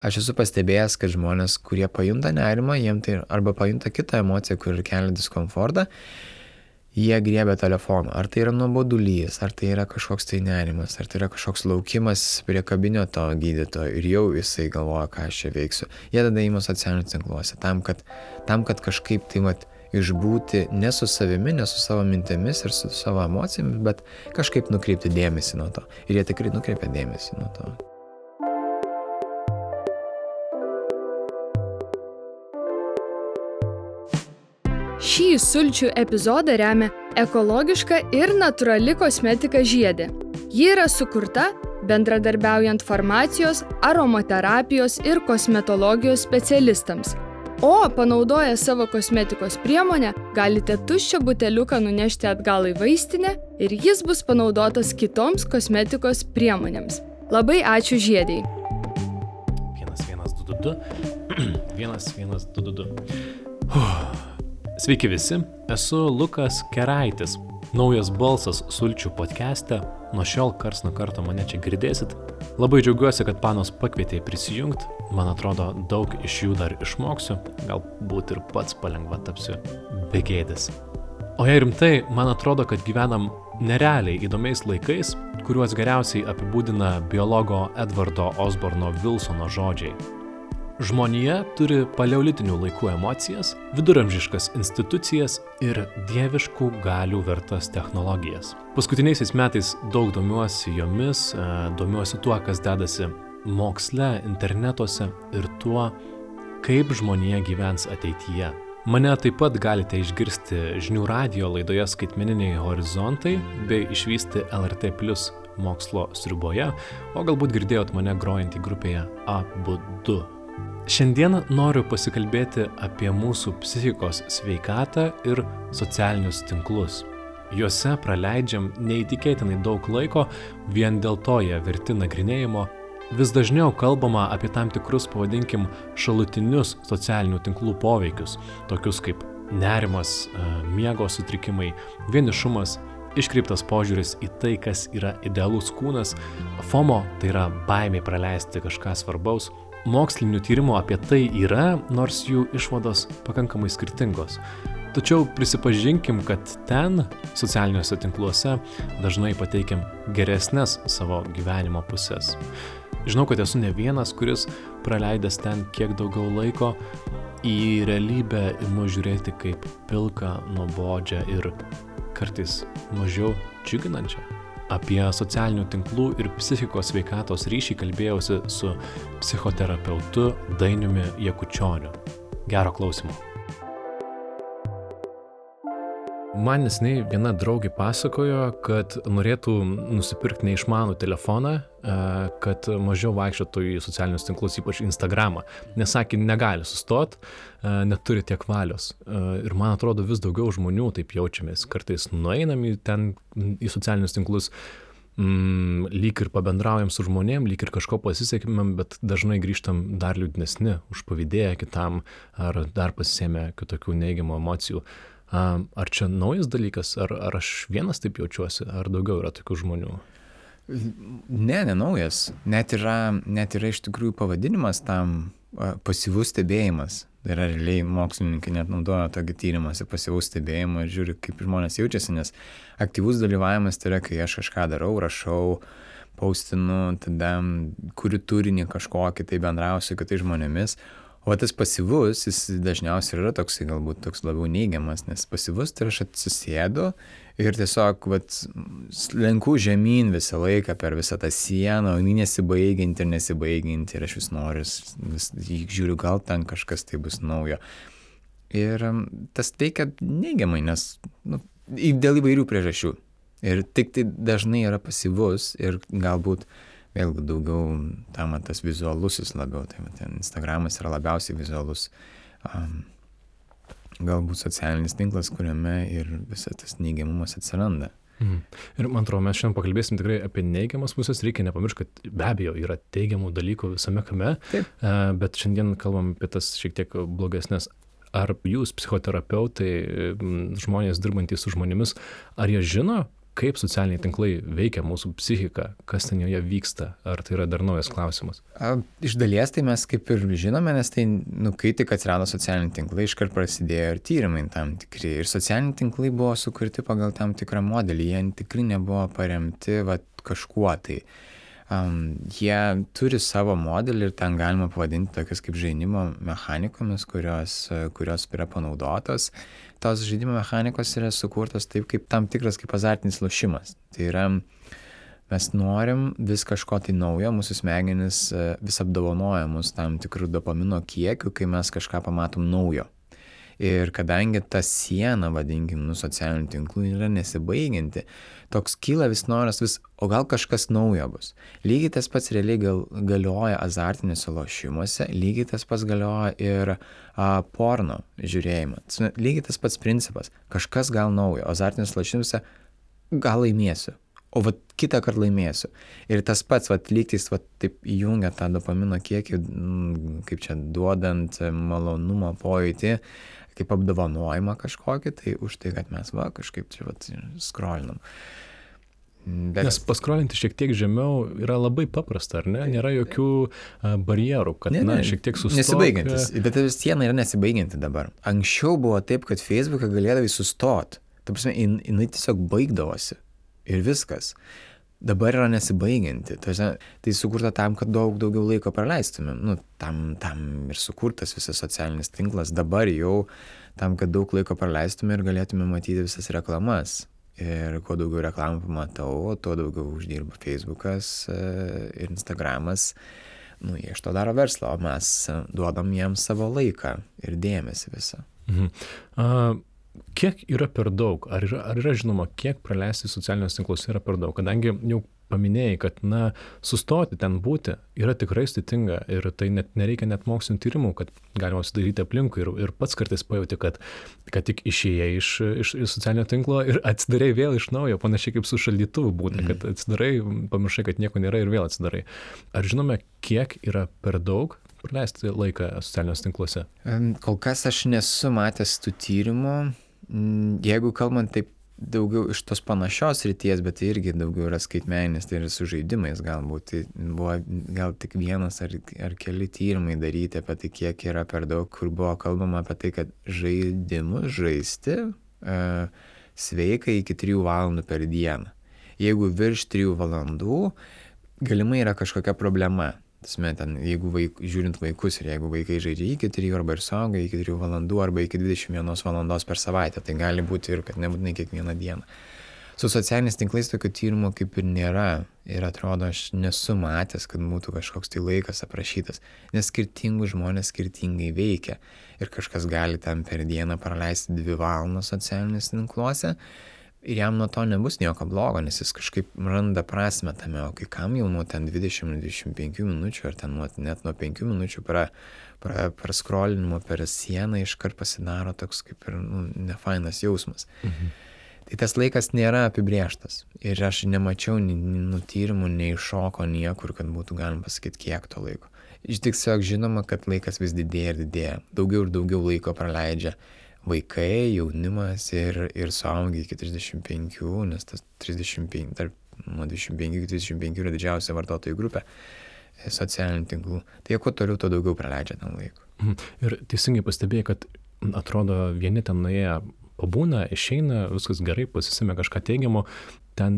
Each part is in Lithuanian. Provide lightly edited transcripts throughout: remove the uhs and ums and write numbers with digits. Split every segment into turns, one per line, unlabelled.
aš esu pastebėjęs, kad žmonės, kurie pajunta nerimą, jiem tai arba pajunta kitą emociją, kur kelia diskomfortą, jie griebia telefoną. Ar tai yra nuobodulys, ar tai yra kažkoks tai nerimas, ar tai yra kažkoks laukimas prie kabineto gydytojo ir jau jisai galvoja, ką aš čia veiksiu. Jie tada ima socialiniuose tinkluose, tam, kad kažkaip tai išbūti ne su savimi, ne su savo mintimis ir su savo emocijomis, bet kažkaip nukreipti dėmesį nuo to. Ir jie tikrai nukreipia dėmesį nuo to.
Šį sulčių epizodą remia ekologiška ir natūrali kosmetika Žiedė. Ji yra sukurta bendradarbiaujant farmacijos, aromaterapijos ir kosmetologijos specialistams. O panaudoję savo kosmetikos priemonę, galite tuščią buteliuką nunešti atgal į vaistinę ir jis bus panaudotas kitoms kosmetikos priemonėms. Labai ačiū Žiedei.
1122 1122. Sveiki visi, esu Lukas Keraitis, naujas balsas sulčių podcast'e, nuo šiol karts nuo karto mane čia girdėsit. Labai džiaugiuosi, kad panos pakvietė prisijungti, man atrodo daug iš jų dar išmoksiu, galbūt ir pats palengva tapsiu begėdis. O jei rimtai, man atrodo, kad gyvenam nerealiai įdomiais laikais, kuriuos geriausiai apibūdina biologo Edvardo Osborno Wilsono žodžiai. Žmonija turi paleolitinių laikų emocijas, viduramžiškas institucijas ir dieviškų galių vertas technologijas. Paskutiniaisiais metais daug domiuosi jomis, domiuosi tuo, kas dedasi moksle, internetuose ir tuo, kaip žmonija gyvens ateityje. Mane taip pat galite išgirsti žinių radijo laidoje Skaitmeniniai horizontai bei išvysti LRT Plus mokslo sriuboje, o galbūt girdėjot mane grojantį grupėje Abudu. Šiandien noriu pasikalbėti apie mūsų psichikos sveikatą ir socialinius tinklus. Juose praleidžiam neįtikėtinai daug laiko, vien dėl to jie verti nagrinėjimo. Vis dažniau kalbama apie tam tikrus, pavadinkim, šalutinius socialinių tinklų poveikius, tokius kaip nerimas, miego sutrikimai, vienišumas, iškreiptas požiūris į tai, kas yra idealus kūnas, FOMO, tai yra baimė praleisti kažką svarbaus. Mokslinių tyrimų apie tai yra, nors jų išvados pakankamai skirtingos. Tačiau prisipažinkim, kad ten, socialiniuose tinkluose, dažnai pateikiam geresnes savo gyvenimo pusės. Žinau, kad esu ne vienas, kuris praleidęs ten kiek daugiau laiko, į realybę imu žiūrėti kaip pilką, nuobodžią ir kartais mažiau džiuginančią. Apie socialinių tinklų ir psichikos sveikatos ryšį kalbėjausi su psichoterapeutu Dainiumi Jakučioniu. Gero klausimo. Man neseniai viena draugė pasakojo, kad norėtų nusipirkti neišmanų telefoną, kad mažiau vaikščiotų į socialinius tinklus, ypač Instagramą. Nes sakė, negali sustot, neturi tiek valios. Ir man atrodo, vis daugiau žmonių taip jaučiamės. Kartais nueinam į socialinius tinklus, lyg ir pabendraujam su žmonėm, lyg ir kažko pasisekimėm, bet dažnai grįžtam dar liūdnesni, užpavydėję kitam, ar dar pasisėmę kitokių neigiamų emocijų. Ar čia naujas dalykas, ar aš vienas taip jaučiuosi, ar daugiau yra tokių žmonių?
Ne naujas. Net yra iš tikrųjų pavadinimas tam pasyvus stebėjimas. Tai yra realiai mokslininkai net naudoja tokį tyrimąsi pasyvaus stebėjimo ir žiūri, kaip žmonės jaučiasi, nes aktyvus dalyvavimas tai yra, kai aš kažką darau, rašau, postinu, tada kuriu turinį kažkokį, tai bendrauju su kitais žmonėmis. O tas pasyvus, jis dažniausiai yra toksai, galbūt toks labiau neigiamas, nes pasyvus tai aš atsisėdu ir tiesiog lenku žemyn visą laiką per visą tą sieną, o nesibaigianti ir aš vis noriu, žiūriu, gal ten kažkas tai bus naujo. Ir tas veikia neigiamai, nes dėl įvairių priežasčių. Ir tik tai dažnai yra pasyvus ir galbūt vėlgi daugiau tam tas vizualusis labiau, tai ten Instagramas yra labiausiai vizualus, galbūt socialinis tinklas, kuriame ir visas tas neigiamumas atsiranda.
Ir man atrodo, mes šiandien pakalbėsim tikrai apie neigiamas pusės, reikia nepamiršti, kad be abejo yra teigiamų dalykų visame kame, bet šiandien kalbam apie tas šiek tiek blogesnės. Ar jūs, psichoterapeutai, žmonės dirbantys su žmonėmis, ar jie žino, kaip socialiniai tinklai veikia mūsų psichiką, kas ten joje vyksta, ar tai yra dar naujas klausimas?
Iš dalies tai mes kaip ir žinome, nes tai, kai tik atsirado socialiniai tinklai, iškart prasidėjo ir tyrimai tam tikri. Ir socialiniai tinklai buvo sukurti pagal tam tikrą modelį, jie tikrai nebuvo paremti kažkuo tai. Jie turi savo modelį ir ten galima pavadinti tokias kaip žaidimo mechanikomis, kurios yra panaudotos. Tos žaidimo mechanikos yra sukurtos taip kaip tam tikras kaip azartinis lošimas. Tai yra, mes norim vis kažko tai naujo, mūsų smegenys vis apdovanoja mus tam tikrų dopamino kiekių, kai mes kažką pamatom naujo. Ir kadangi ta siena, vadinkim, socialinių tinklų yra nesibaigianti, toks kyla vis noras o gal kažkas naujo bus. Lygiai tas pats realiai galioja azartiniuose lošimuose, lygiai tas pats galioja ir porno žiūrėjimą. Lygiai tas pats principas, kažkas gal naujo, azartiniuose lošimuose gal laimėsiu, o kitą kartą laimėsiu. Ir tas pats, lygtais taip įjungia tą dopamino kiekį, kaip čia duodant malonumo pojūtį, kaip apdovanojimą kažkokį, tai už tai, kad mes kažkaip čia skrolinam.
Nes paskrolinti šiek tiek žemiau yra labai paprasta, ar ne? Nėra jokių barjerų, kad šiek tiek sustok.
Nesibaigiantis, bet siena yra nesibaigianti dabar. Anksčiau buvo taip, kad Facebooką galėdavai sustot. Ta prasme, jinai tiesiog baigdavosi ir viskas. Dabar yra nesibaigianti. Tai sukurta tam, kad daug daugiau laiko praleistumėm. Tam ir sukurtas visas socialinis tinklas. Dabar jau tam, kad daug laiko praleistume ir galėtume matyti visas reklamas. Ir kuo daugiau reklamų pamatau, tuo daugiau uždirba Facebookas ir Instagramas. Jie iš to daro verslą, o mes duodam jiems savo laiką ir dėmesį visą.
Kiek yra per daug? Ar yra žinoma, kiek praleisti socialiniuose tinkluose yra per daug? Kadangi jau paminėjai, kad sustoti ten būti yra tikrai sudėtinga ir tai nereikia net mokslinių tyrimų, kad galima sudaryti aplinkui ir pats kartais pajauti, kad tik išėjai iš socialinio tinklo ir atsidarai vėl iš naujo, panašiai kaip su šaldytuvu būna, kad atsidarai, pamiršai, kad nieko nėra ir vėl atsidarai. Ar žinome, kiek yra per daug praleisti laiką socialiniuose tinkluose?
Kol kas aš nesu matęs tų tyrimų. Jeigu kalbant taip daugiau iš tos panašios ryties, bet tai irgi daugiau yra skaitmeninis, tai yra su žaidimais galbūt. Tai buvo gal tik vienas ar keli tyrimai daryti apie tai, kiek yra per daug, kur buvo kalbama apie tai, kad žaidimus žaisti sveika iki 3 valandų per dieną. Jeigu virš 3 valandų, galimai yra kažkokia problema. Jeigu žiūrint vaikus ir jeigu vaikai žaidžia iki 3 arba ir suauga iki 3 valandų arba iki 21 valandos per savaitę, tai gali būti ir kad nebūtinai kiekvieną dieną. Su socialiniais tinklais tokių tyrimų kaip ir nėra ir atrodo, aš nesu matęs, kad būtų kažkoks tai laikas aprašytas, nes skirtingų žmonės skirtingai veikia ir kažkas gali ten per dieną praleisti 2 valandas socialiniuose tinkluose. Ir jam nuo to nebus nieko blogo, nes jis kažkaip randa prasmę tame, o kai kam jau nuo ten 20-25 minučių ar ten net nuo 5 minučių praskrolinimo per sieną iškart pasidaro toks kaip ir nefainas jausmas. Tai tas laikas nėra apibrėžtas ir aš nemačiau tyrimų, nei šoko niekur, kad būtų galima pasakyti, kiek to laiko. Tiesiog žinoma, kad laikas vis didėja ir didėja. Daugiau ir daugiau laiko praleidžia vaikai, jaunimas ir suaugiai iki 35, nes tas 35, nuo 25 iki 35 yra didžiausia vartotojų grupė socialinių tinklų. Tai kuo toliau, to daugiau praleidžia tam laiko.
Ir teisingai pastebėjai, kad atrodo vieni ten nuėję pabūna, išeina, viskas gerai, pasisėmė kažką teigiamo,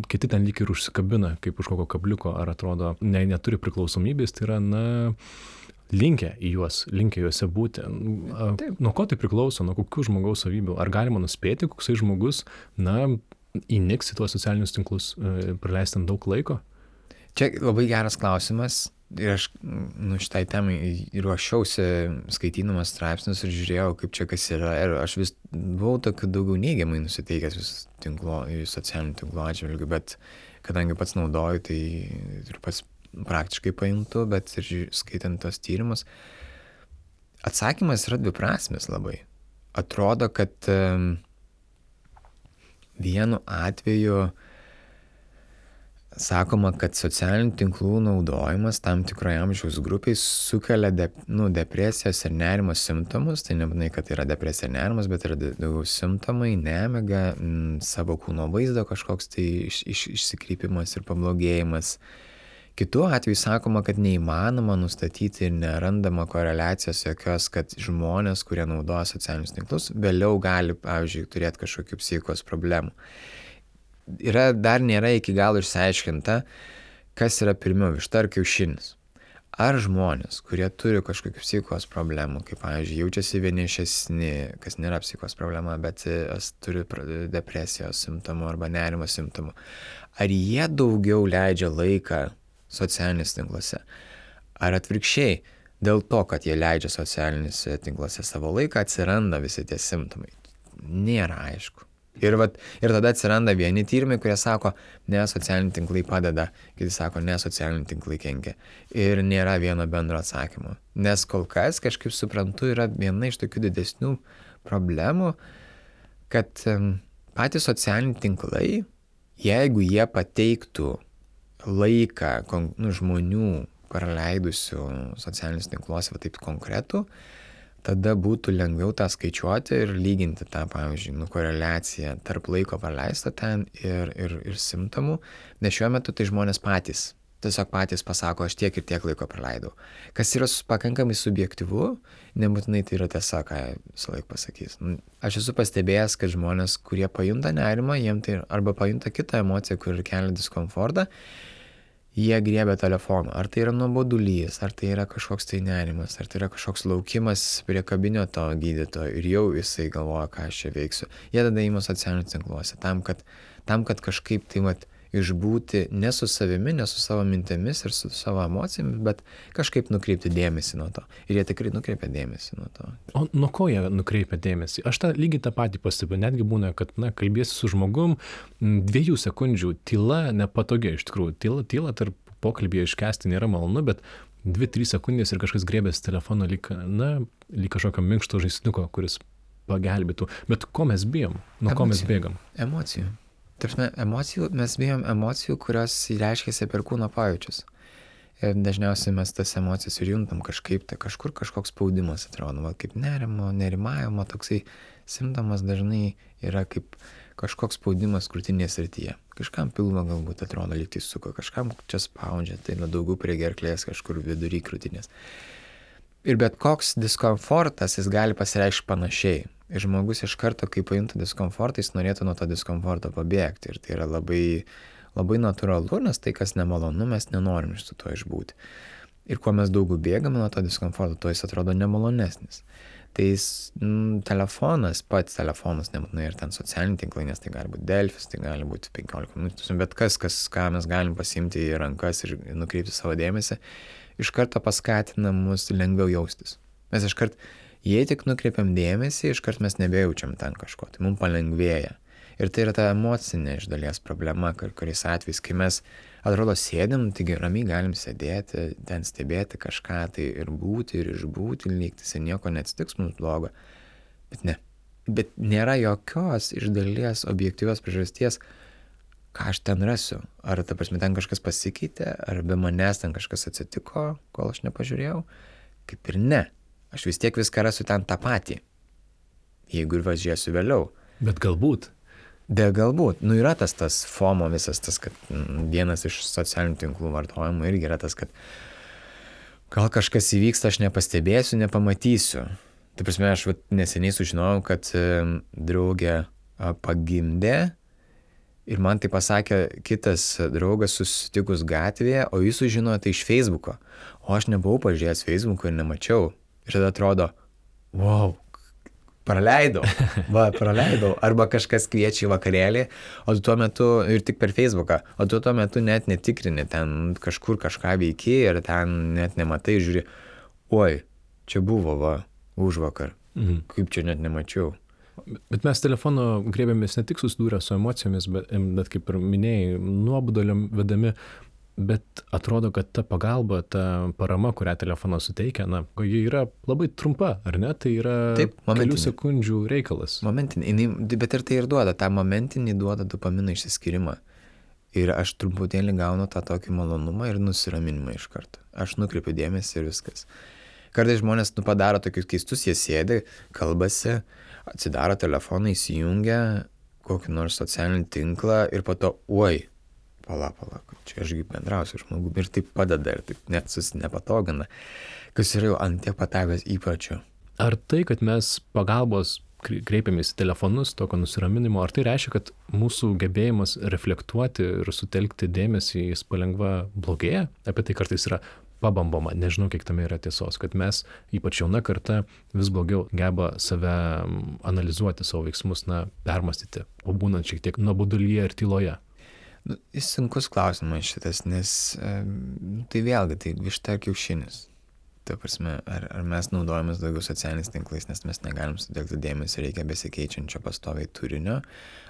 kiti ten lyg ir užsikabina, kaip už kokio kabliuko, ar atrodo, neturi priklausomybės, tai yra, linkę juose būti. Nuo ko tai priklauso, nuo kokių žmogaus savybių? Ar galima nuspėti, koksai žmogus, įniks į tuos socialinius tinklus, praleisti daug laiko?
Čia labai geras klausimas. Ir aš šitai temai ruošiausi skaitydamas straipsnius ir žiūrėjau, kaip čia kas yra. Ir aš vis buvau tokiu daugiau neigiamai nusiteikęs socialinių tinklų atžvilgių, bet kadangi pats naudoju, tai ir pats praktiškai pajuntu, bet ir skaitant tos tyrimus, atsakymas yra dviprasmis labai. Atrodo, kad vienu atveju sakoma, kad socialinių tinklų naudojimas tam tikroje amžiaus grupiai sukelia depresijos ir nerimo simptomus. Tai nebūtinai, kad yra depresija ir nerimas, bet yra daugiau simptomai, nemiga, savo kūno vaizdo kažkoks tai išsikrypimas ir pablogėjimas. Kitu atveju sakoma, kad neįmanoma nustatyti ir nerandama koreliacijos jokios, kad žmonės, kurie naudoja socialinius tinklus, vėliau gali, pavyzdžiui, turėti kažkokių psichikos problemų. Dar nėra iki galo išsiaiškinta, kas yra pirmiau, višta ar kiaušinis. Ar žmonės, kurie turi kažkokių psichikos problemų, kaip, pavyzdžiui, jaučiasi vienišesni, kas nėra psichikos problema, bet turi depresijos simptomų arba nerimo simptomų, ar jie daugiau leidžia laiką socialiniuose tinkluose? Ar atvirkščiai, dėl to, kad jie leidžia socialiniuose tinkluose savo laiką, atsiranda visi tie simptomai? Nėra aišku. Ir tada atsiranda vieni tyrimai, kurie sako, ne, socialiniai tinklai padeda, kiti sako, ne, socialiniai tinklai kenkia. Ir nėra vieno bendro atsakymo. Nes kol kas, kažkaip suprantu, yra viena iš tokių didesnių problemų, kad patys socialiniai tinklai, jeigu jie pateiktų laiką žmonių praleidusių socialinius tinkluose, va taip konkretų, tada būtų lengviau tą skaičiuoti ir lyginti tą, pavyzdžiui, koreliaciją tarp laiko praleisto ten ir simptomų, nes šiuo metu tai žmonės tiesiog patys pasako, aš tiek ir tiek laiko praleidau. Kas yra pakankamai subjektyvu, nebūtinai tai yra tiesa, ką visą laiką pasakys. Aš esu pastebėjęs, kad žmonės, kurie pajunta nerimą, jiem tai arba pajunta kitą emociją, kur kelia diskomfortą, jie griebia telefoną. Ar tai yra nuobodulys, ar tai yra kažkoks tai nerimas, ar tai yra kažkoks laukimas prie kabineto gydytojo ir jau jisai galvoja, ką aš čia veiksiu. Jie tada ima socialiniuose tinkluose tam, kad kažkaip tai išbūti ne su savimi, ne su savo mintimis ir su savo emocijomis, bet kažkaip nukreipti dėmesį nuo to. Ir jie tikrai nukreipia dėmesį nuo to.
O nuo ko jie nukreipia dėmesį? Aš lygiai tą patį pastebiu. Netgi būna, kad kalbėsi su žmogum, 2 sekundžių tyla nepatogi iš tikrųjų. Tyla tarp pokalbėje iškęsti nėra malonu, bet 2-3 sekundės ir kažkas griebės telefoną lyg kažkokio minkšto žaisliuko, kuris pagelbėtų. Bet ko mes bijom? Nuo ko mes bėgam?
Emocijų. Mes bijom emocijų, kurios reiškiasi per kūno pajūčius. Ir dažniausiai mes tas emocijas ir juntam kažkaip, tai kažkur kažkoks spaudimas atrodo, kaip nerimavimo, toksai simptomas dažnai yra kaip kažkoks spaudimas krūtinės srityje. Kažkam pilvo galbūt atrodo lyg tai suko, kažkam čia spaudžia, tai daugiau prie gerklės, kažkur vidury krūtinės. Ir bet koks diskomfortas, jis gali pasireikšti panašiai. Ir žmogus iš karto, kai pajunta diskomfortą, jis norėtų nuo to diskomforto pabėgti. Ir tai yra labai, labai natūralu, nes tai, kas nemalonu, mes nenorim iš to išbūti. Ir kuo mes daugiau bėgame nuo to diskomforto, tuo jis atrodo nemalonesnis. Tai pats telefonas, nebūtinai ir ten socialiniai tinklai, nes tai gali būti Delfis, tai gali būti 15 minučių, bet ką mes galim pasiimti į rankas ir nukreipti savo dėmesį, iš karto paskatina mus lengviau jaustis. Mes iš karto, jei tik nukreipiam dėmesį, iš karto mes nebejaučiam ten kažko, tai mums palengvėja. Ir tai yra ta emocinė iš dalies problema, kuriais atvejais, kai mes atrodo sėdim, taigi ramiai galim sėdėti, ten stebėti kažką tai ir būti, ir išbūti, lygtis ir nieko neatsitiks mums blogo. Bet ne. Bet nėra jokios iš dalies objektyvios priežasties, ką aš ten rasiu. Ar ta prasme ten kažkas pasikeitė, ar be manęs ten kažkas atsitiko, kol aš nepažiūrėjau. Kaip ir ne. Aš vis tiek viską rasiu ten tą patį. Jeigu ir važiuosiu vėliau.
Bet galbūt.
Galbūt. Yra tas FOMO visas tas, kad vienas iš socialinių tinklų vartojimų irgi yra tas, kad gal kažkas įvyksta, aš nepastebėsiu, nepamatysiu. Tai prasme, aš neseniai sužinojau, kad draugė pagimdė ir man tai pasakė kitas draugas susitikus gatvėje, o jis sužinojo tai iš Facebooko. O aš nebuvau pažiūrėjęs Facebooko ir nemačiau. Ir tada atrodo, wow, praleidau. Arba kažkas kviečia į vakarėlį, o tu tuo metu, ir tik per Facebooką, o tu tuo metu net netikrini, ten kažkur kažką veiki ir ten net nematai, žiūri, oi, čia buvo, užvakar, kaip čia net nemačiau.
Bet mes telefono grėbėmės ne tik susidūrę su emocijomis, bet kaip ir minėjai, nuobodulio vedami, bet atrodo, kad ta pagalba, ta parama, kurią telefonas suteikia, ji yra labai trumpa, ar ne? Tai yra kelių sekundžių reikalas.
Momentinį, bet ir tai ir duoda, tą momentinį duoda dopamino išsiskyrimą. Ir aš truputėlį gaunu tą tokį malonumą ir nusiraminimą iš karto. Aš nukreipiu dėmesį ir viskas. Kartais žmonės padaro tokius keistus, jie sėdi, kalbasi, atsidaro telefoną, įsijungia kokį nors socialinį tinklą ir po to, pala, čia ašgi bendrausiu žmogumi ir taip padeda ir taip net nepatogina, kas yra jau ant tiek patavęs įpročių.
Ar tai, kad mes pagalbos kreipiamės į telefonus, tokio nusiraminimo, ar tai reiškia, kad mūsų gebėjimas reflektuoti ir sutelkti dėmesį jis palengva blogėja? Apie tai kartais yra pabambama, nežinau, kiek tame yra tiesos, kad mes, ypač jauna karta, vis blogiau geba save analizuoti, savo veiksmus, permastyti, pabūnant šiek tiek nuobodulyje ir tyloje.
Jis sunkus klausimas šitas, nes tai vėlgi, tai višta ar kiaušinis. Ta prasme, ar mes naudojamės daugiau socialiniais tinklais, nes mes negalim sutelkti dėmesį, reikia besikeičiančio pastoviai turinio,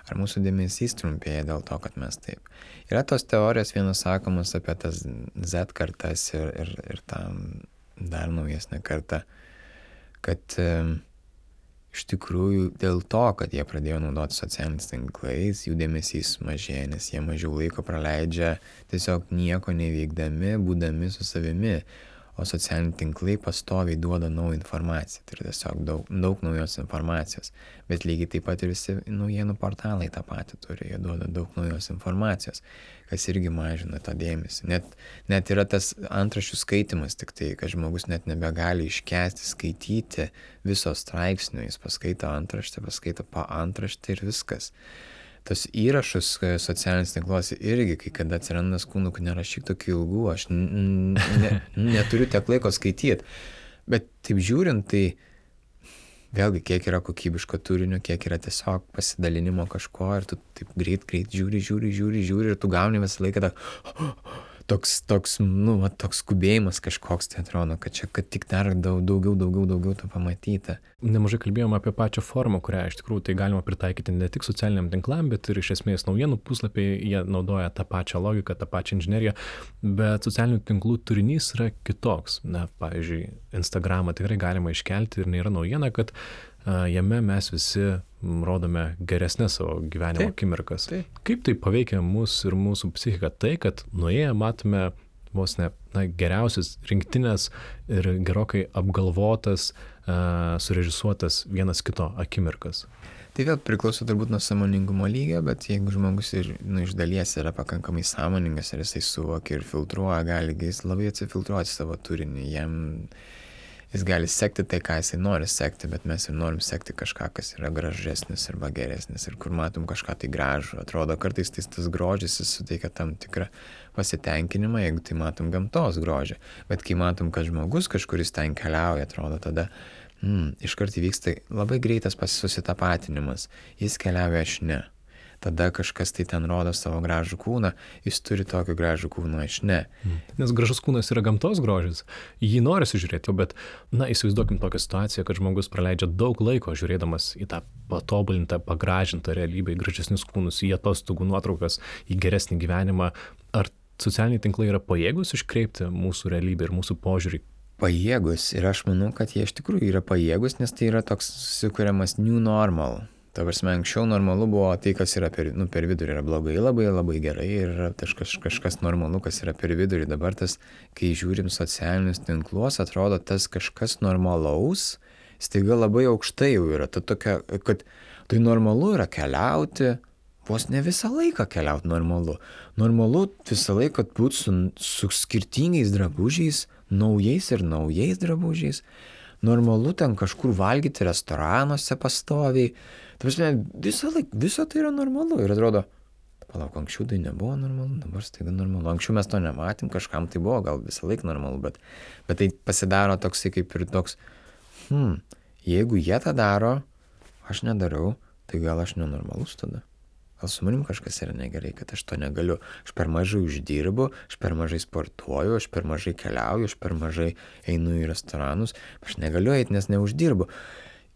ar mūsų dėmesys trumpėja dėl to, kad mes taip. Yra tos teorijos vienas sakomas apie tas Z kartas ir tą dar naujesnę kartą, kad iš tikrųjų dėl to, kad jie pradėjo naudoti socialiniais tinklais, jų dėmesys mažėja, nes jie mažiau laiko praleidžia tiesiog nieko neveikdami, būdami su savimi. O socialiniai tinklai pastoviai duoda naują informaciją, tai yra tiesiog daug naujos informacijos, bet lygiai taip pat ir visi naujienų portalai tą patį turi, jie duoda daug naujos informacijos, kas irgi mažina tą dėmesį. Net yra tas antraščių skaitimas, tik tai, kad žmogus net nebegali iškęsti skaityti viso straipsnio, jis paskaito antraštę, paskaito paantraštę ir viskas. Tas įrašus socialiniais tinkluose irgi, kai kada atsiranda skundų, kad nerašyk tokių ilgų, aš neturiu tiek laiko skaityti. Bet taip žiūrint, tai vėlgi, kiek yra kokybiško turinio, kiek yra tiesiog pasidalinimo kažko ir tu taip greit žiūri ir tu gauni visą laiką toks skubėjimas kažkoks, tai atrodo, kad čia, kad tik dar daugiau to pamatyta.
Nemažai kalbėjome apie pačią formą, kurią iš tikrųjų tai galima pritaikyti ne tik socialiniam tinklam, bet ir iš esmės naujienų puslapiai, jie naudoja tą pačią logiką, tą pačią inžineriją, bet socialinių tinklų turinys yra kitoks. Pavyzdžiui, Instagramą tikrai galima iškelti ir nėra naujiena, kad jame mes visi rodome geresnės savo gyvenimo akimirkas. Kaip tai paveikia mus ir mūsų psichiką? Tai, kad nuėję matome vos ne geriausias rinktinės ir gerokai apgalvotas, surežisuotas vienas kito akimirkas.
Tai vėl priklauso turbūt nuo sąmoningumo lygio, bet jeigu žmogus ir iš dalies yra pakankamai sąmoningas ir jisai suvokia ir filtruoja, gali jis labai atsifiltruoti savo turinį. Jis gali sekti tai, ką jisai nori sekti, bet mes ir norim sekti kažką, kas yra gražesnis arba geresnis ir kur matom kažką tai gražų. Atrodo, kartais tas grožis jis suteikia tam tikrą pasitenkinimą, jeigu tai matom gamtos grožį. Bet kai matom, kad žmogus kažkuris ten keliauja, atrodo, tada iškart įvyksta labai greitas susitapatinimas. Jis keliauja, aš ne. Tada kažkas tai ten rodo savo gražų kūną, jis turi tokį gražų kūną, aš ne.
Nes gražus kūnas yra gamtos grožis, jį norisi žiūrėti, bet, įsivaizduokim tokią situaciją, kad žmogus praleidžia daug laiko žiūrėdamas į tą patobulintą, pagražintą realybę, į gražesnius kūnus, į atostogų nuotraukas, į geresnį gyvenimą. Ar socialiniai tinklai yra pajėgus iškreipti mūsų realybę ir mūsų požiūrį?
Pajėgus, ir aš manau, kad jie iš tikrųjų yra pajėgus, nes tai yra toks susikuriamas new normal. Ta prasme, anksčiau normalu buvo tai, kas yra per vidurį yra blogai, labai gerai ir yra kažkas normalu, kas yra per vidurį. Dabar tas, kai žiūrim socialinius tinklus, atrodo tas kažkas normalaus, staiga labai aukštai jau yra. Ta tokia, kad tai normalu yra keliauti, vos ne visą laiką keliauti normalu. Normalu visą laiką būti su skirtingais drabužiais, naujais drabužiais. Normalu ten kažkur valgyti restoranuose pastoviai. Ta prasme, viso tai yra normalu. Ir atrodo, palauk, anksčiau tai nebuvo normalu, dabar staiga normalu. Anksčiau mes to nematėm, kažkam tai buvo gal visą laiką normalu, bet tai pasidaro toksai kaip ir toks, jeigu jie tą daro, aš nedarau, tai gal aš nenormalus tada. Gal su manim kažkas yra negerai, kad aš to negaliu. Aš per mažai uždirbu, aš per mažai sportuoju, aš per mažai keliauju, aš per mažai einu į restoranus, aš negaliu eiti, nes neuždirbu.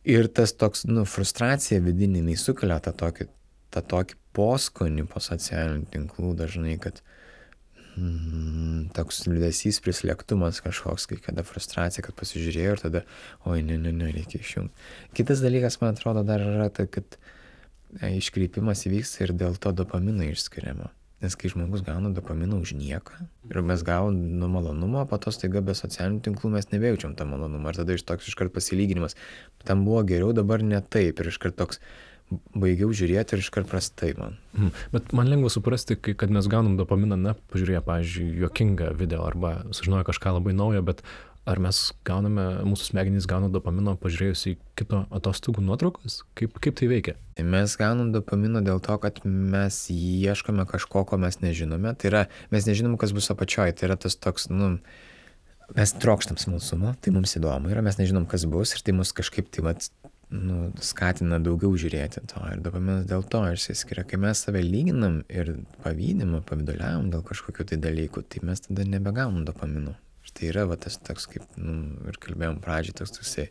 Ir tas toks, frustracija vidinė, jinai sukelia tą tokį poskonį po socialinių tinklų dažnai, kad toks liūdesys, prislėgtumas kažkoks, kai kada frustracija, kad pasižiūrėjau ir tada, ne, reikia išjungti. Kitas dalykas, man atrodo, dar yra tai, kad iškreipimas įvyksta ir dėl to dopamino išskiriamo. Nes kai žmogus gauna dopaminą už nieką ir mes gaunam malonumo, po to staiga be socialinių tinklų mes nebejaučiam tą malonumą. Ir tada toks iškart pasilyginimas. Tam buvo geriau, dabar ne taip. Ir iškart toks baigiau žiūrėti ir iškart prastai man.
Bet man lengva suprasti, kad mes gaunam dopaminą, pažiūrėję, pavyzdžiui, juokingą video arba sužinoję kažką labai naujo, bet ar mes mūsų smegenys gauna dopamino pažiūrėjus į kito atostogų nuotraukas? Kaip tai veikia?
Mes gaunam dopamino dėl to, kad mes ieškome kažko, ko mes nežinome. Tai yra, mes nežinom, kas bus apačioj. Tai yra tas toks, mes trokštam smalsumo, tai mums įdomu yra, mes nežinom, kas bus ir tai mus kažkaip skatina daugiau žiūrėti to. Ir dopaminas dėl to išsiskiria. Kai mes save lyginam ir pavyduliavom dėl kažkokių tai dalykų, tai mes tada nebegaunam dopamino. Tai yra tas toks, kaip ir kalbėjom pradžiai, toksai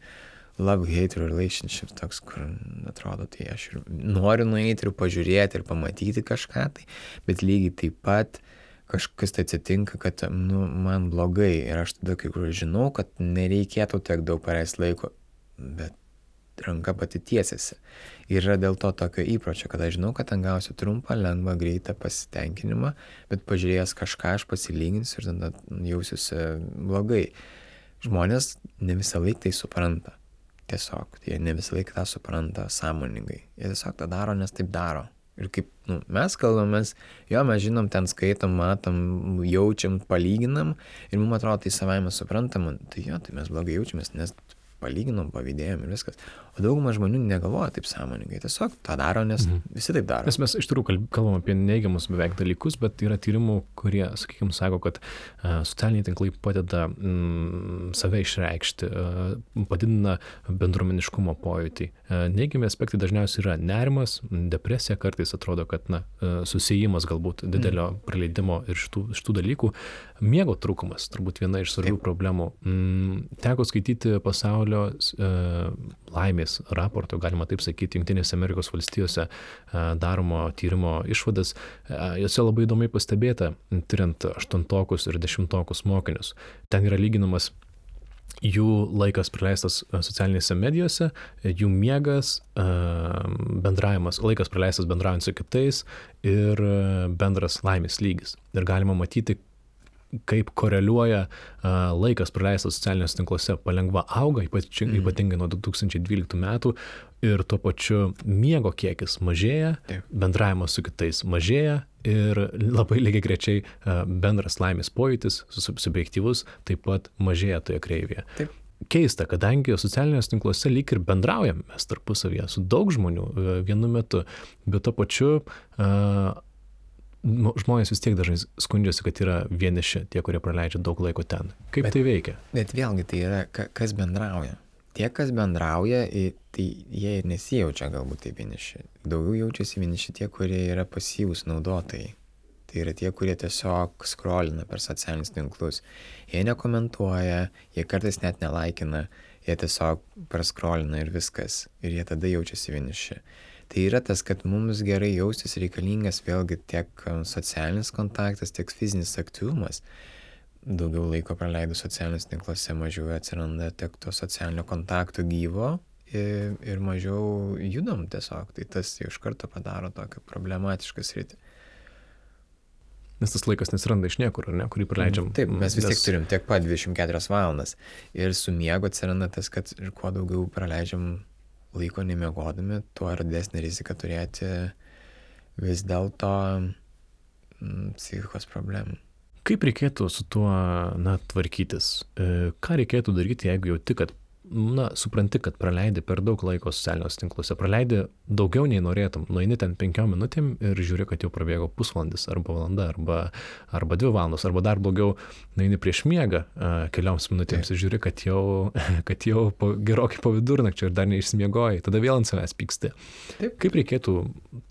love-hate relationship, toks, kur atrodo, tai aš ir noriu nueiti ir pažiūrėti ir pamatyti kažką, bet lygiai taip pat kažkas tai atsitinka, kad man blogai ir aš tada kai kur žinau, kad nereikėtų tiek daug praleisti laiko, bet ranka pati tiesiasi. Ir yra dėl to tokio įpročio, kad aš žinau, kad ten gausiu trumpą, lengvą, greitą pasitenkinimą, bet pažiūrėjęs kažką aš pasilyginsiu ir tada jausiuosi blogai. Žmonės ne visą laiką tai supranta. Tiesiog, jie ne visą laiką tą supranta sąmoningai. Jie tiesiog tą daro, nes taip daro. Ir kaip mes kalbamės, mes žinom, ten skaitom, matom, jaučiam, palyginam ir mums atrodo tai savaime suprantama. Tai tai mes blogai jaučiamės, nes palyginom, pavydėjom ir viskas. O dauguma žmonių negalvoja taip sąmoningai. Tiesiog tą daro, nes visi taip daro.
Nes mes iš tikrųjų kalbam apie neigiamus beveik dalykus, bet yra tyrimų, kurie, sakykime, sako, kad socialiniai tinklai padeda save išreikšti, padidina bendruomeniškumo pojūtį. Neigiami aspektai dažniausiai yra nerimas, depresija, kartais atrodo, kad susijimas galbūt didelio praleidimo ir šitų dalykų. Miego trūkumas, turbūt viena iš svarbių problemų. Teko skaityti pasaulio laimės raporto, galima taip sakyti, Jungtinėse Amerikos valstijose daromo tyrimo išvadas. Jose labai įdomiai pastebėta, tyriant 8-tokus ir 10-tokus mokinius. Ten yra lyginamas jų laikas praleistas socialinėse medijose, jų miegas, bendravimas, laikas praleistas bendraujant su kitais ir bendras laimės lygis. Ir galima matyti, kaip koreliuoja laikas praleistas socialiniuose tinkluose palengva auga, ypatingai nuo 2012 metų, ir tuo pačiu miego kiekis mažėja, bendravimas su kitais mažėja ir labai lygiagrečiai bendras laimės pojūtis, subjektyvus, taip pat mažėja toje kreivėje.
Taip.
Keista, kadangi socialiniuose tinkluose lyg ir bendraujam mes tarpusavyje su daug žmonių vienu metu, bet tuo pačiu žmonės vis tiek dažnai skundžiasi, kad yra vieniši tie, kurie praleidžia daug laiko ten. Kaip tai veikia?
Bet vėlgi tai yra, kas bendrauja. Tie, kas bendrauja, tai jie ir nesijaučia galbūt taip vieniši. Daugiau jaučiasi vieniši tie, kurie yra pasyvūs naudotojai. Tai yra tie, kurie tiesiog scrollina per socialinius tinklus. Jie nekomentuoja, jie kartais net nelaikina, jie tiesiog prascrollina ir viskas. Ir jie tada jaučiasi vieniši. Tai yra tas, kad mums gerai jaustis reikalingas vėlgi tiek socialinis kontaktas, tiek fizinis aktyvumas. Daugiau laiko praleidus socialinius tinkluose, mažiau atsiranda tiek to socialinio kontakto gyvo ir mažiau judam tiesiog. Tai tas jau iš karto padaro tokią problematišką sritį.
Nes tas laikas nesiranda iš niekur, ar ne, kurį praleidžiam.
Taip, mes vis tiek turim tiek pat 24 valandas. Ir su miego atsiranda tas, kad ir kuo daugiau praleidžiam laiko nemiegodami, tuo yra didesnė rizika turėti vis dėlto psichikos problemų.
Kaip reikėtų su tuo tvarkytis? Ką reikėtų daryti, jeigu jauti, kad supranti, kad praleidi per daug laiko socialiniuose tinkluose, praleidi daugiau nei norėtum, nueini ten 5 minutėm ir žiūri, kad jau prabėgo pusvalandis arba valanda arba 2 valandos, arba dar blogiau, nueini prieš miegą kelioms minutėms ir žiūri, kad jau gerokai po vidurnakčio ir dar neišsimiegojai, tada vėl ant savęs pyksti.
Taip.
Kaip reikėtų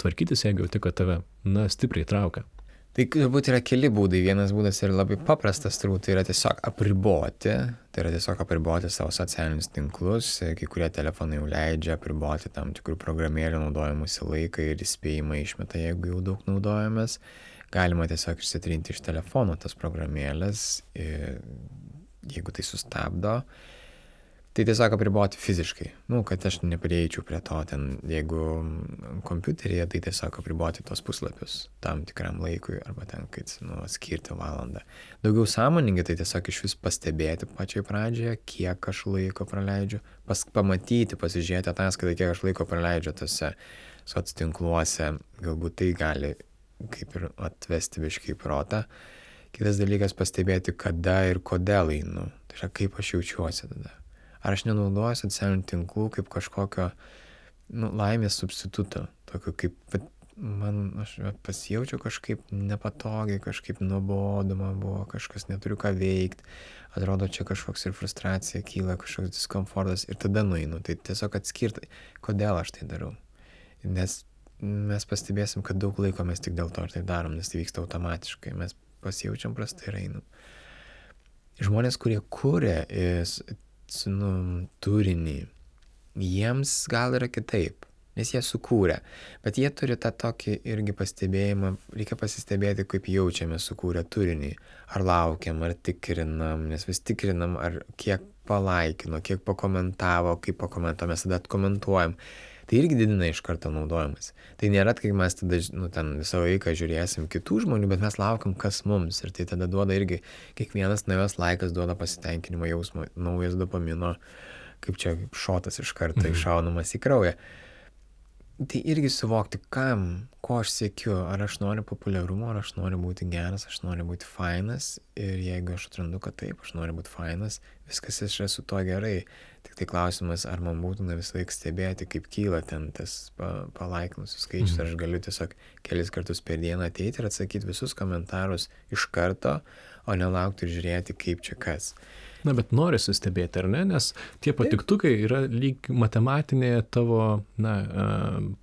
tvarkytis, jeigu jauti, kad tave stipriai traukia?
Tai turbūt yra keli būdai. Vienas būdas yra labai paprastas, turbūt tai yra tiesiog apriboti. Tai yra tiesiog apriboti savo socialinius tinklus. Kai kurie telefonai jau leidžia apriboti tam tikrų programėlių naudojimusi laiką ir įspėjimą išmeta, jeigu jau daug naudojamės. Galima tiesiog išsitrinti iš telefono tas programėlės, jeigu tai sustabdo. Tai tiesiog apriboti fiziškai, kad aš neprieičiau prie to ten, jeigu kompiuteryje, tai tiesiog apriboti tos puslapius tam tikram laikui arba ten, kai skirti valandą. Daugiau sąmoningai, tai tiesiog iš vis pastebėti pačiai pradžioje, kiek aš laiko praleidžiu, pamatyti, pasižiūrėti ataskaitą, kiek aš laiko praleidžiu tose soctinkluose, galbūt tai gali kaip ir atvesti biškį į protą. Kitas dalykas pastebėti, kada ir kodėl einu, tai yra kaip aš jaučiuosi tada. Ar aš nenaudoju socialinių tinklų kaip kažkokio laimės substituto, tokio kaip aš pasijaučiau kažkaip nepatogiai, kažkaip nuobodu man buvo, kažkas neturiu ką veikti, atrodo čia kažkoks ir frustracija kyla, kažkoks diskomfortas ir tada nueinu. Tai tiesiog atskirti, kodėl aš tai darau. Nes mes pastebėsim, kad daug laiko mes tik dėl to ir tai darom, nes tai vyksta automatiškai, mes pasijaučiam prastai ir einam. Žmonės, kurie kuria turinį, jiems gal yra kitaip, nes jie sukūrė, bet jie turi tą tokį irgi pastebėjimą, reikia pasistebėti, kaip jaučiame sukūrę turinį, ar laukiam, ar tikrinam, nes vis tikrinam, ar kiek palaikino, kiek pakomentavo, kaip pakomentavo, mes tada atkomentuojam. Tai irgi didina iš karto naudojimas. Tai nėra, kai mes tada ten visą laiką žiūrėsim kitų žmonių, bet mes laukiam, kas mums. Ir tai tada duoda irgi, kiekvienas naujas laikas duoda pasitenkinimo jausmą, naujas dopamino, kaip čia šotas iš karto iššaunamas į kraują. Tai irgi suvokti, ko aš siekiu, ar aš noriu populiarumo, ar aš noriu būti geras, aš noriu būti fainas. Ir jeigu aš atrandu, kad taip, aš noriu būti fainas, viskas yra su to gerai. Tik tai klausimas, ar man būtina visą laiką stebėti, kaip kyla ten tas palaikinusių skaičius, ar aš galiu tiesiog kelis kartus per dieną ateiti ir atsakyti visus komentarus iš karto, o nelaukti ir žiūrėti, kaip čia kas.
Na, bet norisi stebėti, ar ne? Nes tie patiktukai yra lyg matematinė tavo,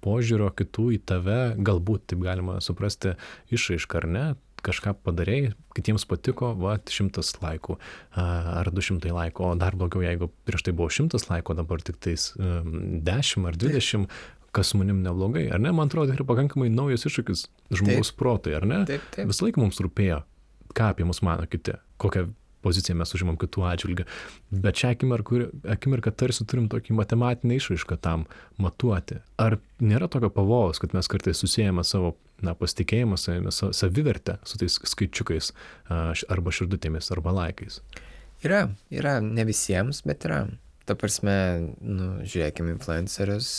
požiūrio kitų į tave, galbūt taip galima suprasti išraišką, ar ne? Kažką padarei, kitiems patiko, 100 laikų ar 200 laikų, o dar blogiau, jeigu prieš tai buvo 100 laikų, dabar tik tais 10 ar 20, kas su manim neblogai, ar ne? Man atrodo, tai yra pakankamai naujas iššūkis žmogaus protui, ar ne?
Taip.
Visą laiką mums rūpėjo, ką apie mus mano kiti, kokią poziciją mes užimam kitų atžvilgių, bet šią akimirką tarsi turim tokį matematinę išraišką tam matuoti. Ar nėra tokio pavojaus, kad mes kartais susijame savo pasitikėjimą savimi, savivertę su tais skaičiukais arba širdutėmis, arba laikais?
Yra, ne visiems, bet yra. Ta prasme, žiūrėkime influencerius,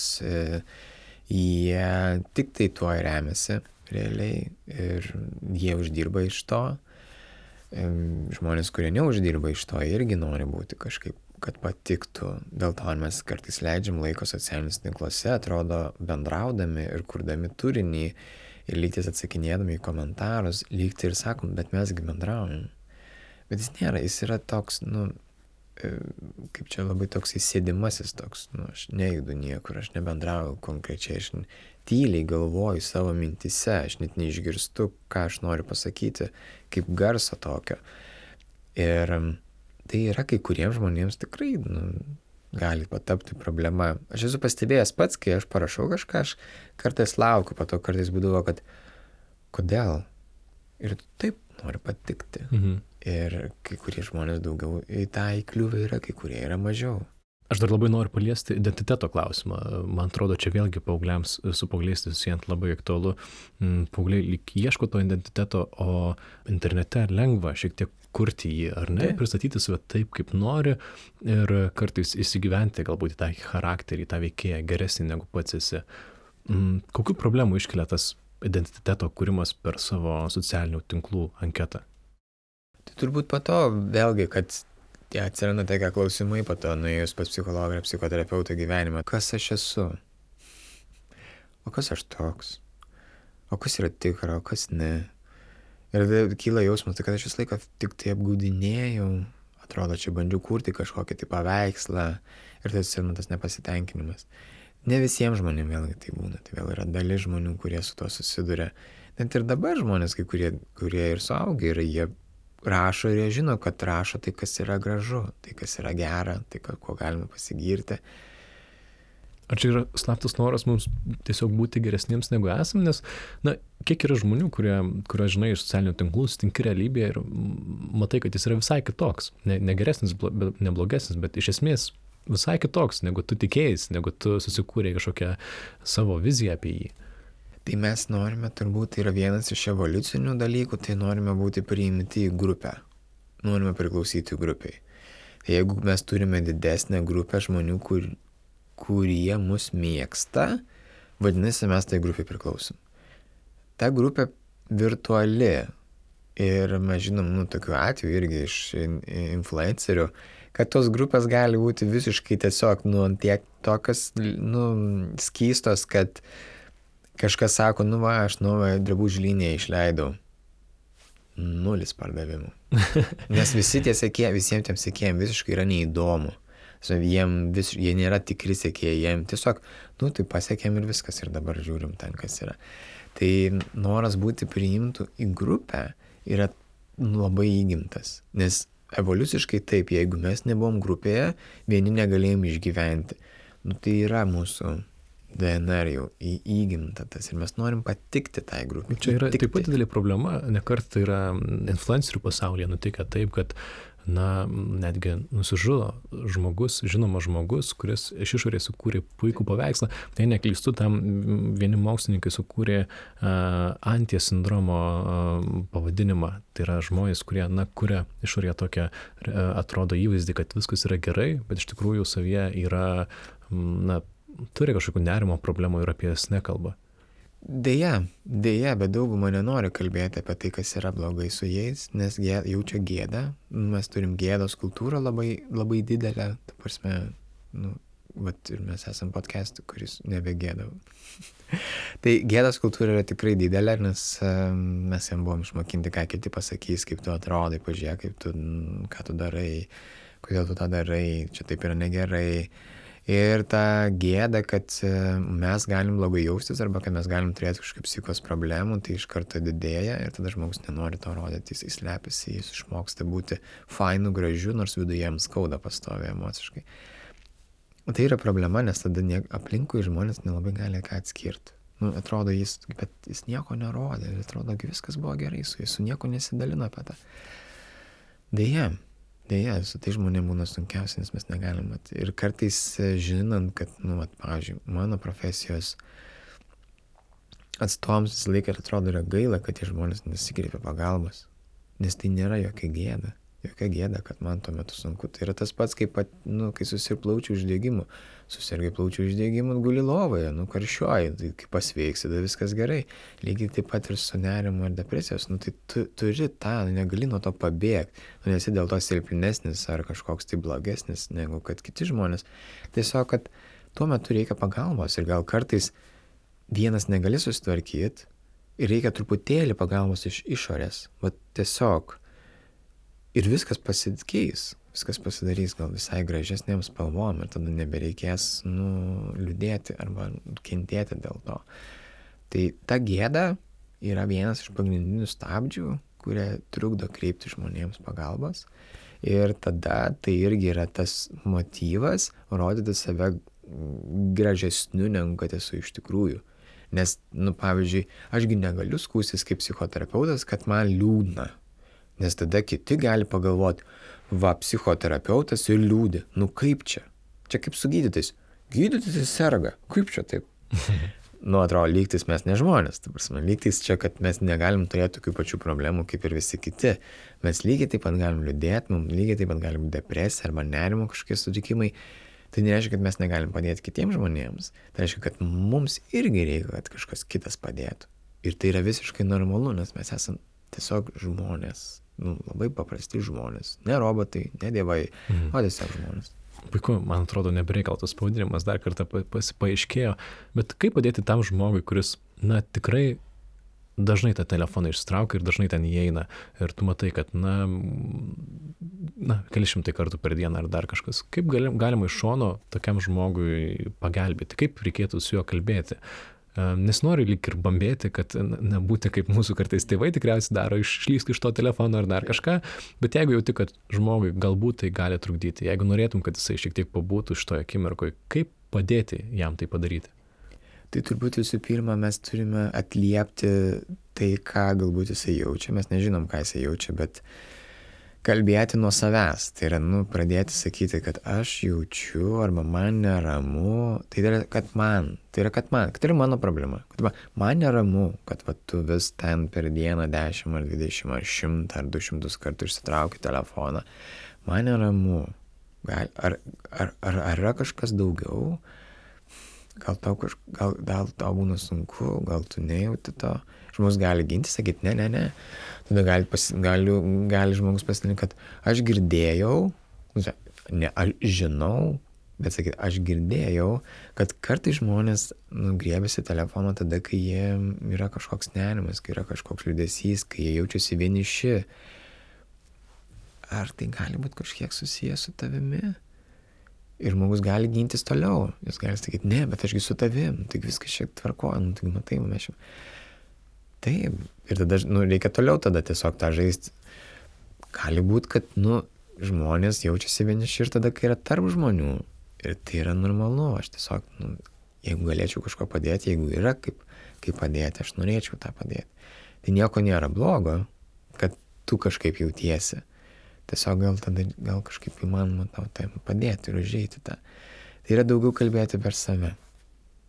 jie tik tai tuo remiasi realiai ir jie uždirba iš to. Žmonės, kurie neuždirba iš to, irgi nori būti kažkaip, kad patiktų. Dėl to mes kartais leidžiam laiko socialiniuose tinkluose, atrodo, bendraudami ir kurdami turinį ir lygtis atsakinėdami į komentarus, lygtai ir sakom, bet mesgi bendraujam. Bet jis nėra, jis yra toks, kaip čia labai toks įsėdimasis toks, aš nejudu niekur, aš nebendrauju konkrečiai, aš tyliai galvoju savo mintise, aš net neišgirstu, ką aš noriu pasakyti, kaip garso tokio. Ir tai yra kai kuriems žmonėms tikrai gali patapti problema. Aš esu pastebėjęs pats, kai aš parašau kažką, aš kartais laukiu, po to kartais būdavo, kad kodėl? Ir taip noriu patikti. Ir kai kurie žmonės daugiau į tą įkliuvę yra, kai kurie yra mažiau.
Aš dar labai noriu paliesti identiteto klausimą. Man atrodo, čia vėlgi paaugliams su paaugliais susijant labai aktualu. Paaugliai lyg ieško to identiteto, o internete lengva šiek tiek kurti jį, ar ne? Pristatyti save taip, kaip nori ir kartais įsigyventi galbūt į tą charakterį, tą veikėją geresnį negu pats esi. Kokių problemų iškelia tas identiteto kūrimas per savo socialinių tinklų anketą?
Tai turbūt po to vėlgi, kad atsiranda tokie klausimai po to, nuėjus pas psichologą ir psichoterapeutą gyvenimą. Kas aš esu? O kas aš toks? O kas yra tikra, o kas ne? Ir kyla jausmas, kad aš visą laiką tik tai apgaudinėjau. Atrodo, čia bandžiau kurti kažkokį tai paveikslą ir tai atsiranda tas nepasitenkinimas. Ne visiems žmonėms vėlgi tai būna. Tai vėl yra dalis žmonių, kurie su to susiduria. Net ir dabar žmonės, kai kurie ir suaugę yra, jie rašo ir jie žino, kad rašo tai, kas yra gražu, tai, kas yra gera, tai, ko galima pasigirti.
Ar čia yra slaptas noras mums tiesiog būti geresniems negu esam, nes, kiek yra žmonių, kurie žinai, iš socialinių tinklų sutinki realybėje ir matai, kad jis yra visai kitoks, ne geresnis, ne blogesnis, bet iš esmės visai kitoks, negu tu tikėjais, negu tu susikūrė kažkokią savo viziją apie jį.
Tai mes norime, turbūt tai yra vienas iš evoliucinių dalykų, tai norime būti priimti į grupę. Norime priklausyti grupiai. Tai jeigu mes turime didesnę grupę žmonių, kurie mus mėgsta, vadinasi, mes tai grupiai priklausom. Ta grupė virtuali ir mes žinom, tokių atvejų irgi iš influencerių, kad tos grupės gali būti visiškai tiesiog, tiek tokios, skystos, kad kažkas sako, aš naują drabužių liniją išleidau. 0 pardavimų. Nes visi tie sekėjai, visiems tiem sekėjams visiškai yra neįdomu. Jie nėra tikri sekėjai, jiem tiesiog, tai pasiekėm ir viskas ir dabar žiūrim ten, kas yra. Tai noras būti priimtų į grupę yra labai įgimtas. Nes evoliuciškai taip, jeigu mes nebuvom grupėje, vieni negalėjom išgyventi. Tai yra mūsų DNR jau įgimta tas ir mes norim patikti tai grupiai.
Čia yra taip pat didelė problema, nekart yra influencerių pasaulyje nutikę taip, kad netgi nusižudo žinomas žmogus, kuris iš išorės sukūrė puikų paveikslą. Tai neklystu, tam vieni mokslininkai sukūrė anties sindromo pavadinimą. Tai yra žmonės, kurie kuria išorėje tokią atrodo įvaizdį, kad viskas yra gerai, bet iš tikrųjų savyje yra turi kažkokių nerimo problemų ir apie jas nekalba.
Deja, bet dauguma nenori kalbėti apie tai, kas yra blogai su jais, nes jaučia gėdą. Mes turim gėdos kultūrą labai, labai didelę. Ta prasme, ir mes esam podcast'u, kuris nebegėda. Tai gėdos kultūra yra tikrai didelė, nes mes jam buvom išmokinti, ką kiti pasakys, kaip tu atrodai, pažiūrėk, ką tu darai, kodėl tu tą darai, čia taip yra negerai. Ir ta gėda, kad mes galim blogai jaustis arba kad mes galim turėti kažkokių psichikos problemų, tai iš karto didėja ir tada žmogus nenori to rodyti, jis slepiasi, jis išmoksta būti fainu, gražiu, nors viduje jam skauda pastoviai emociškai. Tai yra problema, nes tada aplinkui žmonės nelabai gali ką atskirti. Atrodo, bet jis nieko nerodė, atrodo, viskas buvo gerai su jis, su nieko nesidalino apie tą. Deja, su tai žmonėm būna sunkiausia, nes mes negalim. Ir kartais žinant, kad, pavyzdžiui, mano profesijos atstovams visą laiką atrodo yra gaila, kad tie žmonės nesikreipia pagalbos. Nes tai nėra jokia gėda, kad man tuo metu sunku. Tai yra tas pats, kaip, kai susirgai plaučių uždegimu. Susirgai plaučių uždegimu, guli lovoje, karščiuoji, tai kai pasveiksi, tada viskas gerai. Lygiai taip pat ir su nerimu ir depresijos. Tai tu turi tą, negali nuo to pabėgti. Nesi dėl to silpnesnis ar kažkoks tai blogesnis negu kad kiti žmonės. Tiesiog, kad tuo metu reikia pagalbos ir gal kartais vienas negali susitvarkyti ir reikia truputėlį pagalbos iš išorės. Tiesiog. Ir viskas pasikeis, viskas pasidarys gal visai gražesnėm spalvom ir tada nebereikės liūdėti arba kentėti dėl to. Tai ta gėda yra vienas iš pagrindinių stabdžių, kurie trukdo kreipti žmonėms pagalbos. Ir tada tai irgi yra tas motyvas rodyti save gražesniu, negu kad esu iš tikrųjų. Nes, pavyzdžiui, ašgi negaliu skųstis kaip psichoterapeutas, kad man liūdna. Nes tada kiti gali pagalvoti, psichoterapeutas ir liūdi. Kaip čia? Čia kaip su gydytais. Gydytis serga. Kaip čia taip? Atrodo, lygtis mes ne žmonės. Lygtis čia, kad mes negalim turėti tokių pačių problemų kaip ir visi kiti. Mes lygiai taip pat galim liūdėti, mums lygiai taip pat galim depresija arba nerimo kažkokie sutrikimai. Tai nereiškia, kad mes negalim padėti kitiems žmonėms. Tai reiškia, kad mums irgi reikia, kad kažkas kitas padėtų. Ir tai yra visiškai normalu, nes mes esam tiesiog žmonės. Labai paprasti žmonės. Ne robotai, ne dievai, o tiesiog žmonės.
Puiku, man atrodo, nebereikaltas pavadinimas dar kartą paaiškėjo. Bet kaip padėti tam žmogui, kuris, tikrai dažnai tą telefoną išsitraukia ir dažnai ten įeina. Ir tu matai, kad, keli šimtai kartų per dieną ar dar kažkas. Kaip galima iš šono tokiam žmogui pagelbėti? Kaip reikėtų su juo kalbėti? Nes noriu lyg ir bambėti, kad nebūti kaip mūsų kartais tėvai tikriausiai daro, išlįsk iš to telefono ar dar kažką, bet jeigu jauti, kad žmogui galbūt tai gali trukdyti, jeigu norėtum, kad jisai šiek tiek pabūtų šitoje akimirkoje, kaip padėti jam tai padaryti?
Tai turbūt visų pirma, mes turime atliepti tai, ką galbūt jisai jaučia. Mes nežinom, ką jisai jaučia, bet kalbėti nuo savęs. Tai yra, pradėti sakyti, kad aš jaučiu arba man neramu. Tai yra, kad tai yra mano problema. Kad man neramu, kad tu vis ten per dieną 10 ar 20 ar 100 ar 200 kartų išsitrauki telefoną. Man neramu. Ar yra kažkas daugiau? Gal tau būna sunku, gal tu nejauti to. Žmogus gali ginti, sakyti, ne. Tada gali žmogus pasidalinti, kad aš girdėjau, ne, aš žinau, bet sakyti, aš girdėjau, kad kartais žmonės griebėsi telefono tada, kai jie yra kažkoks nerimas, kai yra kažkoks liūdesys, kai jie jaučiasi vieniši. Ar tai gali būti kažkiek susijęs su tavimi? Ir žmogus gali gintis toliau. Jis gali sakyti, ne, bet ašgi su tavim, tai viskas šiek tvarkoja, tai matai, mes šiek. Taip. Ir tada, reikia toliau tada tiesiog tą žaisti. Gali būti, kad, žmonės jaučiasi vieniši ir tada, kai yra tarp žmonių. Ir tai yra normalu. Aš tiesiog, jeigu galėčiau kažko padėti, jeigu yra kaip padėti, aš norėčiau tą padėti. Tai nieko nėra blogo, kad tu kažkaip jautiesi. Tiesiog gal kažkaip įmanoma tau tai padėti ir užeiti tą. Tai yra daugiau kalbėti per save.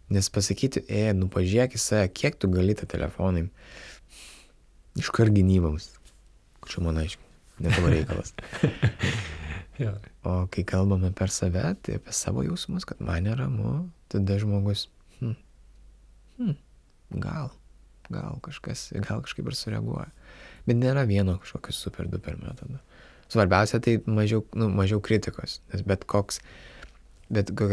Nes pasakyti, pažiūrėk į save, kiek tu gali tą telefonai iškart gynybams. Čia man aiškiai, ne tavo reikalas. O kai kalbame per save, tai apie savo jausmus, kad man neramu, tada žmogus, gal kažkaip ir sureaguoja. Bet nėra vieno kažkokio super duper metodo. Svarbiausia tai mažiau kritikos, nes bet kokia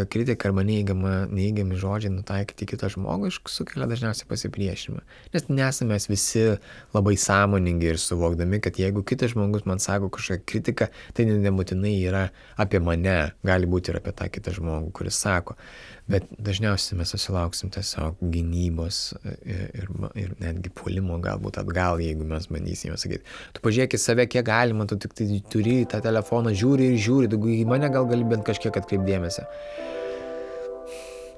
kritika arba neįgiami žodžiai nutaikyti kitą žmogų sukelia dažniausiai pasipriešinimą. Nes nesame mes visi labai sąmoningi ir suvokdami, kad jeigu kitas žmogus man sako kažkokią kritiką, tai nebūtinai yra apie mane, gali būti ir apie tą kitą žmogų, kuris sako. Bet dažniausiai mes susilauksim tiesiog gynybos ir netgi puolimo galbūt atgal, jeigu mes bandysime sakyti, tu pažiūrėk į save, kiek galima, tu tik tai turi tą telefoną, žiūri, tu į mane gal gali bent kažkiek atkreipdėmėsi.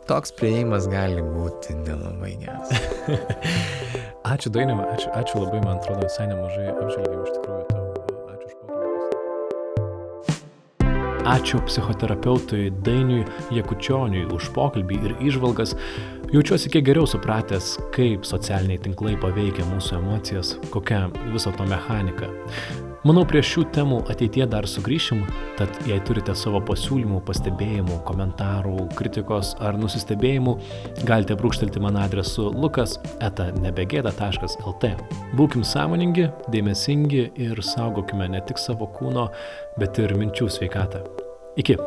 Toks priėjimas gali būti nelabai geras.
Ačiū Dainiau, ačiū labai, man atrodo, visai nemažai apžvelgėm iš tikrųjų tau. Ačiū už pokalbį. Ačiū psichoterapeutui Dainiui Jakučioniui už pokalbį ir įžvalgas. Jaučiuosi kiek geriau supratęs, kaip socialiniai tinklai paveikia mūsų emocijas, kokia viso to mechanika. Manau, prie šių temų ateityje dar sugrįšim, tad jei turite savo pasiūlymų, pastebėjimų, komentarų, kritikos ar nusistebėjimų, galite brūkštelti man adresu lukas@nebegėda.lt. Būkim sąmoningi, dėmesingi ir saugokime ne tik savo kūno, bet ir minčių sveikatą. Iki.